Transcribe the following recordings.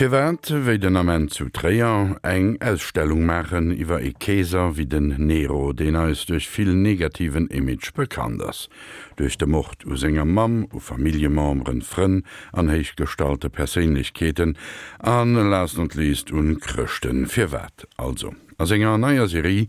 Firwat, wéi den Ament zu Tréier, eng Ausstellung maachen iwwer ee Keeser wéi den Nero, deen eis duerch vill negativen Image bekannt ass, duerch de Mord u senger Mamm, u Familljememberen, Frënn an héichgestallte Perséinlechkeeten an last not least un Chrëschten? Firwat also? A senger neier Serie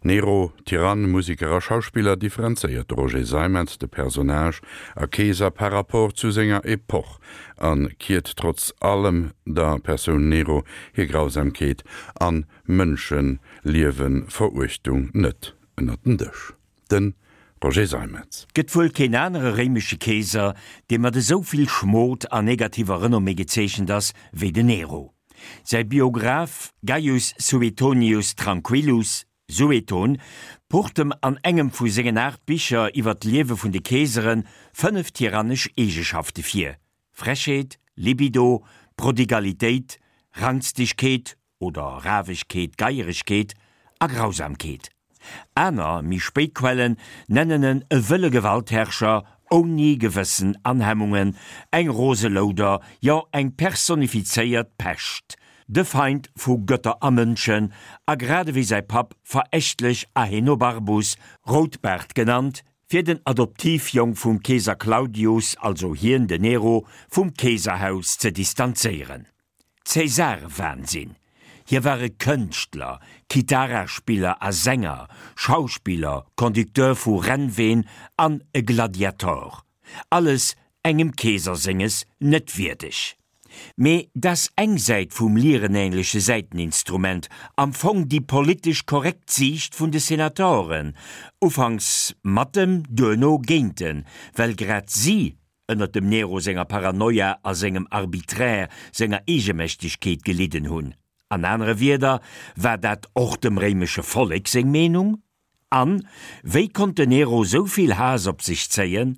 Nero, Tyrann, Museker a Schauspiller differenzéiert de Roger Seimetz de Personnage a Keeser par rapport zu senger Epoch a kiert trotz allem der Persoun Nero hir Grausamkeet an Mënscheliewenveruechtung net ënnert den Dësch. De Roger Seimetz. Gëtt wuel keen anere réimesche Keeser, dee mat esou vill Schmot a negativer Renommée gezeechent ass wéi den Nero. Säi Biograph Gaius Suetonius Tranquillus, Sueton, pucht em an engem vu sengen 8 Bicher iwwer d'Liewe vun de Keesere 5 tyrannesch Eegeschafte vir, Frechheet, Libido, Prodigalitéit, Rangstegkeet oder Rawegkeet, Geieregkeet a Grausamkeet. Aner, méi spéit Quellen nennen en e wëlle Gewaltherrscher ouni Gewëssen an Hemmungen, eng rose Louder, jo eng personifizéiert Pescht, de Feind vu Gëtter a Mënschen, a grad ewéi säi Papp verächtlech Ahenobarbus, Routbaart genannt, fir den Adoptivjong vum Keeser Claudius, also hien, den Nero, vum Keeserhaus ze distanzéieren. Cäsarewahnsinn. Hie war e Kënschtler, Kitaraspiller a Sänger, Schauspiller, Conducteur vu Rennween an e Gladiator. Alles engem Keeser senges net wierdeg. Mee dass eng Säit vum lierenähnleche Säiteninstrument, am Fong déi politesch korrekt Siicht vun de Senatoren, ufanks mat em, duerno géint en, well grad si ënnert dem Nero senger Paranoia a sengem Arbitraire, senger Eegemächtegkeet gelidden hunn. An anere Wierder, war dat och dem réimesche Vollek seng Meenung? An, wéi konnt den Nero sou vill Haass op sech zéien?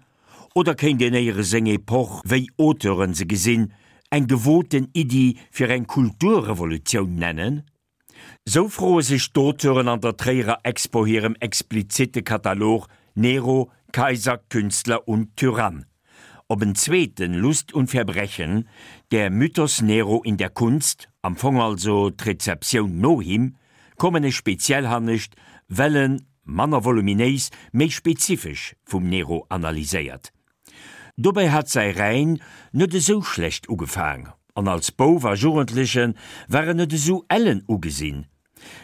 Oder kéint een éiere seng Epoch, wéi Auteuren se gesinn, eng gewoten Iddi fir eng Kulturrevolutioun nennen? Sou froe sech d'Auteuren an der Tréierer Expo hirem explizitte Katalog Nero, Kaiser, Künstler und Tyrann. Op en zweeten Lust und Verbrechen, Der Mythos Nero in der Kunst, am Fong also d'Rezeptioun no him, kommen ech speziell hannescht, well en, manner voluminéis, méi spezifesch vum Nero analyséiert. Dobäi hat säi Règne net esou schlecht ugefaang, an als Bouf a Jugendleche war en net esou ellen ugesinn.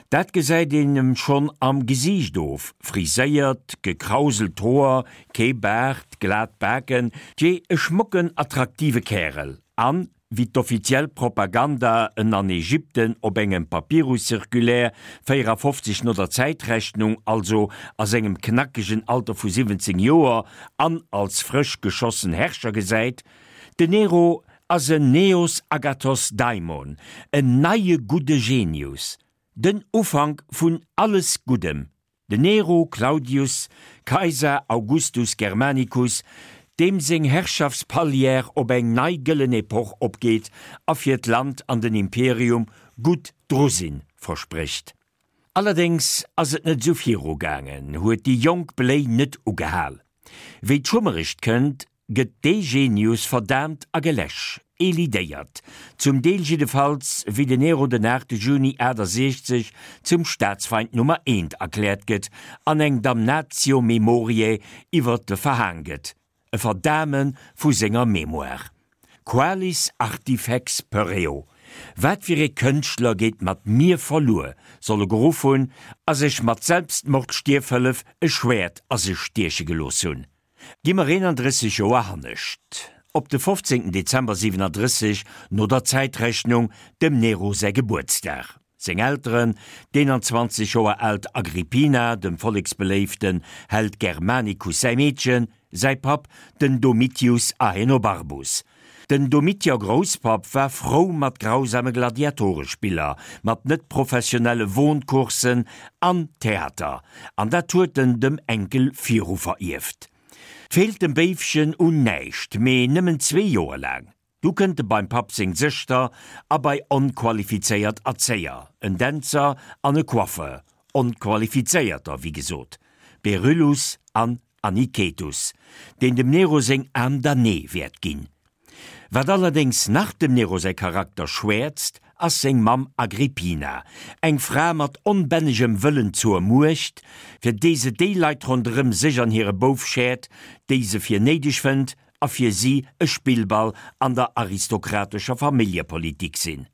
Dat gesäit een em schonn am Gesiicht of, friséiert, gekrauselt Hoer, kee Baart, glat Baken, tjee, e schmocken, attraktive Kärel. An, wéi d'offiziell Propaganda en an Ägypten op engem Papyrus-Circulaire 54 no der Zäitrechnung, also a sengem knackegen Alter vu 17 Joer an als frësch geschossen Herrscher gesäit, Den Nero ass en Neos Agathos Daimon, en neie gudde Genius, den Ufank vun alles Guddem, Den Nero Claudius Caesar Augustus Germanicus, deem seng Herrschaftspalière op eng nei gëllen Epoch opgeet a fir d'Land an den Imperium gutt dru sinn versprécht. Allerdéngs ass et net esou viru gaangen, huet déi jonk Bléi net ugehal. Wéi d'Schummerecht kënnt, gëtt dee Genius verdaamt a geläsch, elidéiert, zum Deel jiddefalls, wéi den Nero den 8 Juni 68 zum Staatsfeind Nummer eent erkläert gëtt an eng Damnatio memoriae iwwer e verhaang gëtt, e Verdaame vu senger Mémoire. Qualis artifex pereo, wat fir ee Kënschtler geet mat mir verluer, soll e geruff hunn a sech mat Selbstmordstierfhëllef e Schwäert a sech stieche gelooss hunn. Gi mer 31 Joer hannescht, op de 15 Dezember 37 no der Zäitrechnung, dem Nero säi Gebuertsdag. Seng Elteren, d'21 Joer aalt Agrippina, dem volleksbeléiften Held Germanicus säi Meedchen, säi Papp, den Domitius Ahenobarbus. Den Domitier Grousspapp war frou mat grausame Gladiatorespiller, mat net professionelle Wohncoursen an Theater, an dat huet en dem Enkel viru verierft. Feelt dem Béifchen un näischt, mee nëmmen zwee Joer laang. Du kënnt e beim Papp seng Sëschter a bei onqualifizéiert Erzéier, en Dänzer an e Coiffeur, onqualifizéierter, wéi gesot, Beryllus an Anicetus, deen dem Nero seng Âme damnée wäert ginn. Wat allerdéngs nach dem Nero säi Charakter schwäerzt, ass seng Mamm Agrippina, eng Fra mat onbännegem Wëllen zur Muecht, fir déi se déi Leit ronderëm sech an hire Bouf schäert, déi se fir néideg fënnt a fir si e Spillball an der aristokratescher Familljepolitik sinn.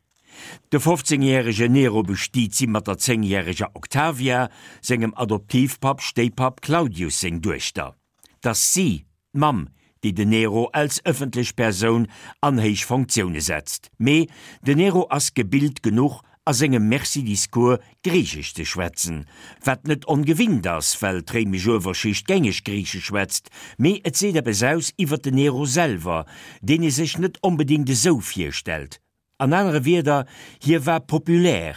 De 15 järege Nero bestiet si mat der 10 järeger Octavia, sengem Adoptivpapp Stéipapp Claudius seng Duechter. T'ass si, d'Mamm, déi den Nero als ëffentlech Persoun an héich Fonctioune setzt. Mee den Nero ass gebilt genuch a sengem Merci-Discours Griichesch ze schwätzen, wat net ongewinnt ass, well d'réimesch Uewerschicht gängeg Griichesch schwätzt, mee et seet eppes aus iwwer den Nero selwer, deen ee sech net onbedéngt esou virstellt. An anere Wierder, hie war populär,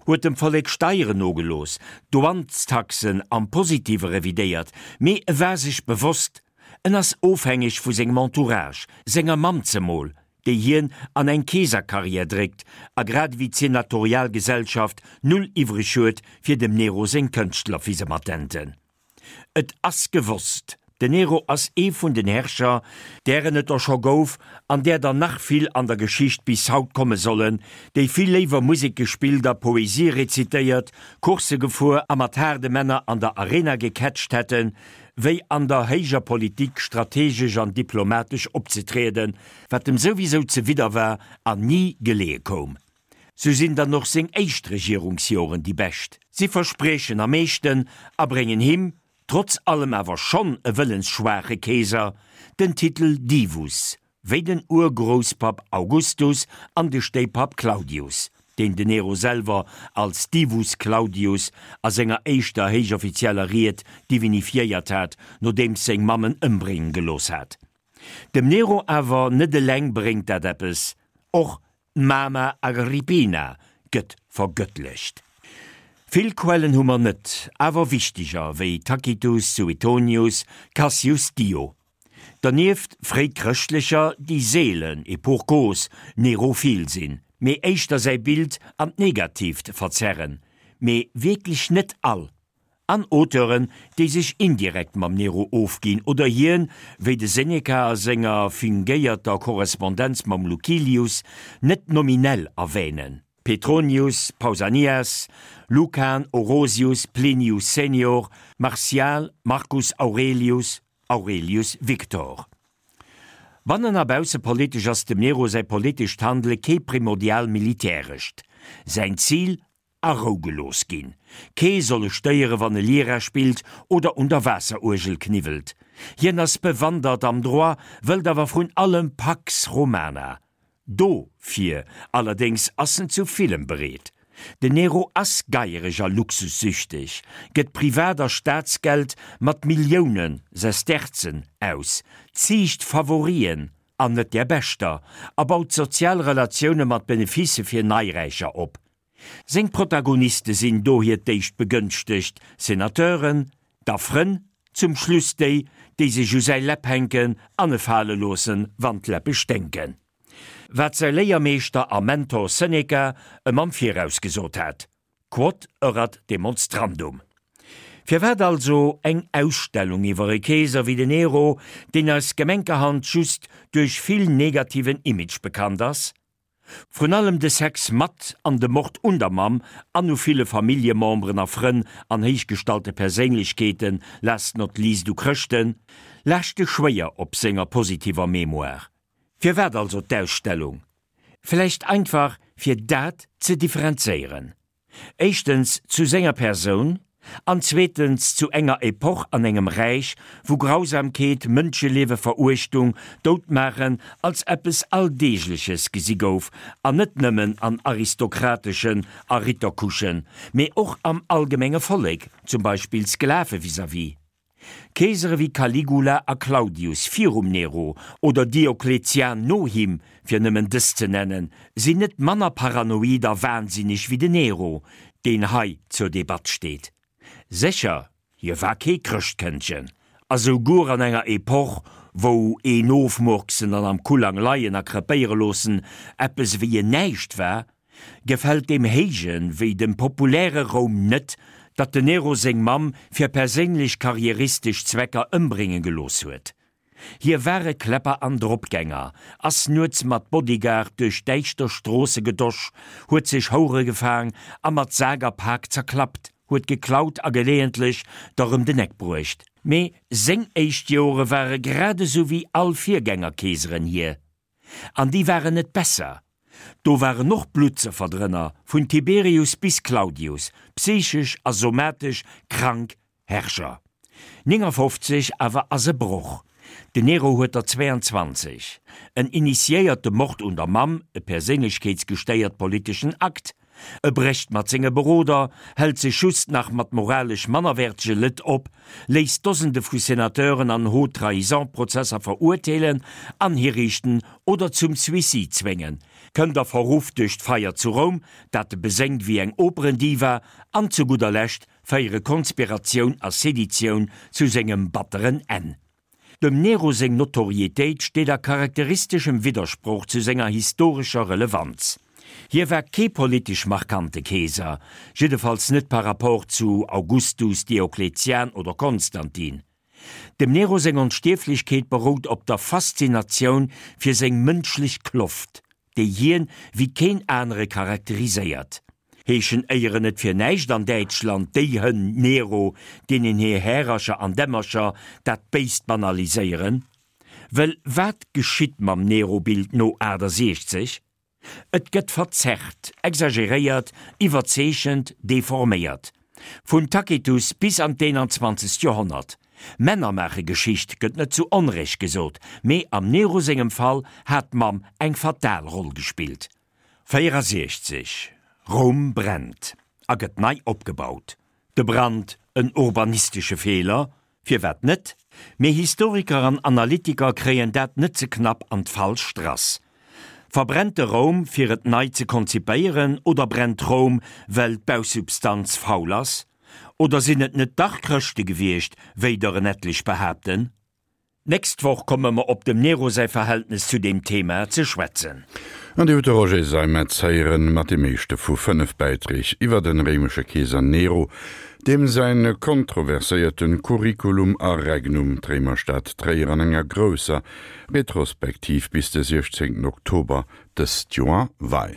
huet dem Vollek Steieren nogelooss, Douanestaxen am Positive revidéiert, mee e war sech bewosst, en ass ofhängeg vu sengem Entourage, senger Mamm zemol, déi hien an eng Keeserkarriär dréckt a grad ewéi d'senatorial Gesellschaft null iwwreg huet fir dem Nero seng Kënschtlerfisematenten. Et ass gewosst, den Nero ass ee vun den Herrscher, dären et der scho gouf an där der nach vill an der Geschicht bis haut komme sollen, déi vill léiwer Musek gespillt a Poesie rezitéiert, Coursse gefuer a mat haarde Männer an der Arena gecatcht hätten, wéi an der héijer Politik strategesch an diplomatesch opzetrieden, wat em souwisou zewidder war an ni geleeë koum. Sou sinn dann och seng éischt Regierungsjoren déi bescht. Si verspriechen am meeschten a bréngen him, trotz allem awer schonn e wëllensschwaache Keeser, den Titel Divus, wéi den Urgrousspapp Augustus an de Stéipapp Claudius, deen den Nero selwer als Divus Claudius a senger éischter héichoffizieller Ried divinifiéiert hat, nodeems seng Mamm en ëmbrénge gelooss hat. Dem Nero awer net eleng bréngt dat eppes, och D'Mama Agrippina gëtt vergëttlecht. Vill Quellen hu mer net, awer wichteger wéi Tacitus, Suetonius, Cassius Dio. Dernieft fréichrëschtlecher, déi seelen, et pour cause, nerophil sinn, mee éischter säi Bild an d'Negatiivt verzerren, mee wierklech net all. An Auteuren, déi sech indirekt mam Nero ofginn oder hien, wéi de Seneca a senger fingéierter Korrespondenz mam Lucilius, net nominell erwänen, Petronius, Pausanias, Lucan, Orosius, Plinius Senior, Martial, Marcus Aurelius, Aurelius Victor. Bannen a baussepolitesch ass dem Nero säi politescht Handele kee primordial militärescht. Säin Zil, A Rou gelooss ginn. Kee soll e stéiere wann e Lira spillt oder un der Waasseruergel kniwwelt. Hien ass bewandert am Droit, wëllt awer vrun allem Pax Romana. Dofir allerdéngs ass en zu villem bereet. Den Nero ass geiereg a luxussüchteg, gëtt Privat a Staatsgeld mat Millioune Sesterzen aus, ziicht Favorien an net där beschter a baut sozial Relatioune mat Beneficë fir Neiräicher op. Seng Protagoniste sinn dohier d'éischt begënschtegt Senateuren, da Frënn, zum Schluss déi, déi sech u säi Läpp hänken an e fale loossen, wann d'Läppe sténken. Wat säi Léiermeeschter a Mentor Seneca ëm am Viraus gesot hat, Quod erat demonstrandum. Firwat also eng Ausstellung iwwer e Keeser wéi den Nero, deen eis gemenkerhand just duerch vill negativen Image bekannt ass? Vrun allem de Sex mat an de Mord un der Mamm an u ville Familljememberen a Frënn an héichgestallte Perséinlechkeeten, last not least u Chrëschten, laaschte schwéier op senger positiver Mémoire. Firwat also d'Ausstellung? Vläicht einfach fir dat ze differenzéieren. Éischtens zu senger Persoun an zweetens zu enger Epoch an engem Räich, wou Grausamkeet, Mënschelieweveruechtung, Doutmaachen als eppes Alldeegleches gesi gouf, an net nëmmen an aristokrateschen a Rittercouchen, mee och am allgemenge Vollek, zum Beispill Sklave vis-à-vis. Keesere wéi Caligula a Claudius virum Nero oder Diokletian no him, fir nëmmen dës ze nennen, sinn net manner paranoid a wahnsinneg wéi den Nero, deen hei zur Debatt steet. Sécher, hie war kee Chrëschtkëndchen, a souguer an enger Epoch, wou een ofmurksen an am Kullang leien a krepéiere loossen eppes ewéi en Näischt war, Gefält deem héije wéi dem populäre Roum net, datt den Nero seng Mamm fir perséinlech karrieristesch Zwecker ëmbrénge gelooss huet. Hie war e Kläpper an Dropgänger, ass nuets mat Bodyguard duerch däischter Stroosse gedosch, huet sech Houre gefaang a mat Sak a Pak zerklappt, huet geklaut a geleeëntlech der rëm den Eck bruecht. Mee seng éischt Joere ware grad esou wéi all Virgängerkeeseren hir. An déi waren net besser. Do waren och Bluttsëffer drënner, vun Tiberius bis Claudius, psychesch a somatesch krank Herrscher. 59 awer ass e Broch. Den Nero huet der 22. En initiéiert de Mord un der Mamm, e perséinlechkeetsgestéiert politeschen Akt. E brécht mat senge Beroder, hält sech just nach mat moralesch mannerwäertege Lëtt op, léisst Dosende vu Senateuren an Haute-Trahison-Prozesser verurteelen an hiriichten oder zum Suicide zwéngen, kënnt a Verruff duerch d'Feier zu Roum, dat e beséngt wéi eng Operendiva, an zu gudder Lescht féiere Konspiratioun a Seditioun zu sengem batteren Enn. Dem Nero seng Notorietéit steet a charakteristeschem Widdersproch zu senger historescher Relevanz. Hie war kee politesch markante Keeser, jiddefalls net par rapport zu Augustus, Diokletian oder Konstantin. Dem Nero seng Onstierflechkeet berout op der Faszinatioun fir seng mënschlech Kloft, déi hien wéi keen anere charakteriséiert. Heeschen éieren net fir näischt an Däitschland déi Hënn Nero, deenen hir Härercher an Dämmercher dat Béist banaliséieren? Wëll wat geschitt mam Nero-Bild no 68? Et gëtt verzerrt, exageréiert, iwwerzeechent, deforméiert. Vun Tacitus bis an d'21. Joerhonnert. Männer maache Geschicht, gëtt net zu Onrecht gesot, mee am Nero sengem Fall hat d'Mamm eng fatal Roll gespillt. 64, Roum brennt a gëtt nei opgebaut. De Brand en urbanistesche Feeler? Firwat net? Mee Historiker an Analytiker kréien dat net ze knapp an d'falsch Strass. Verbrennt de Roum fir et nei ze konzipéieren oder brennt Roum well d'Bausubstanz faul ass? Oder sinn et net dach Chrëschte gewiescht, wéi der en etlech behaapten? D'nächst Woch komme mer op dem Nero säi Verhältnes zu deem Thema ze schwätzen. An Dir hutt de Roger Seimetz héieren mat deem éischte vu 5 Bäiträg iwwer den réimesche Keeser Nero, deem säin kontroverséierte Curriculum a Regnum d'Réimerstad Tréier an enger grousser Retrospektiv bis de 16 Oktober dëst Joer weist.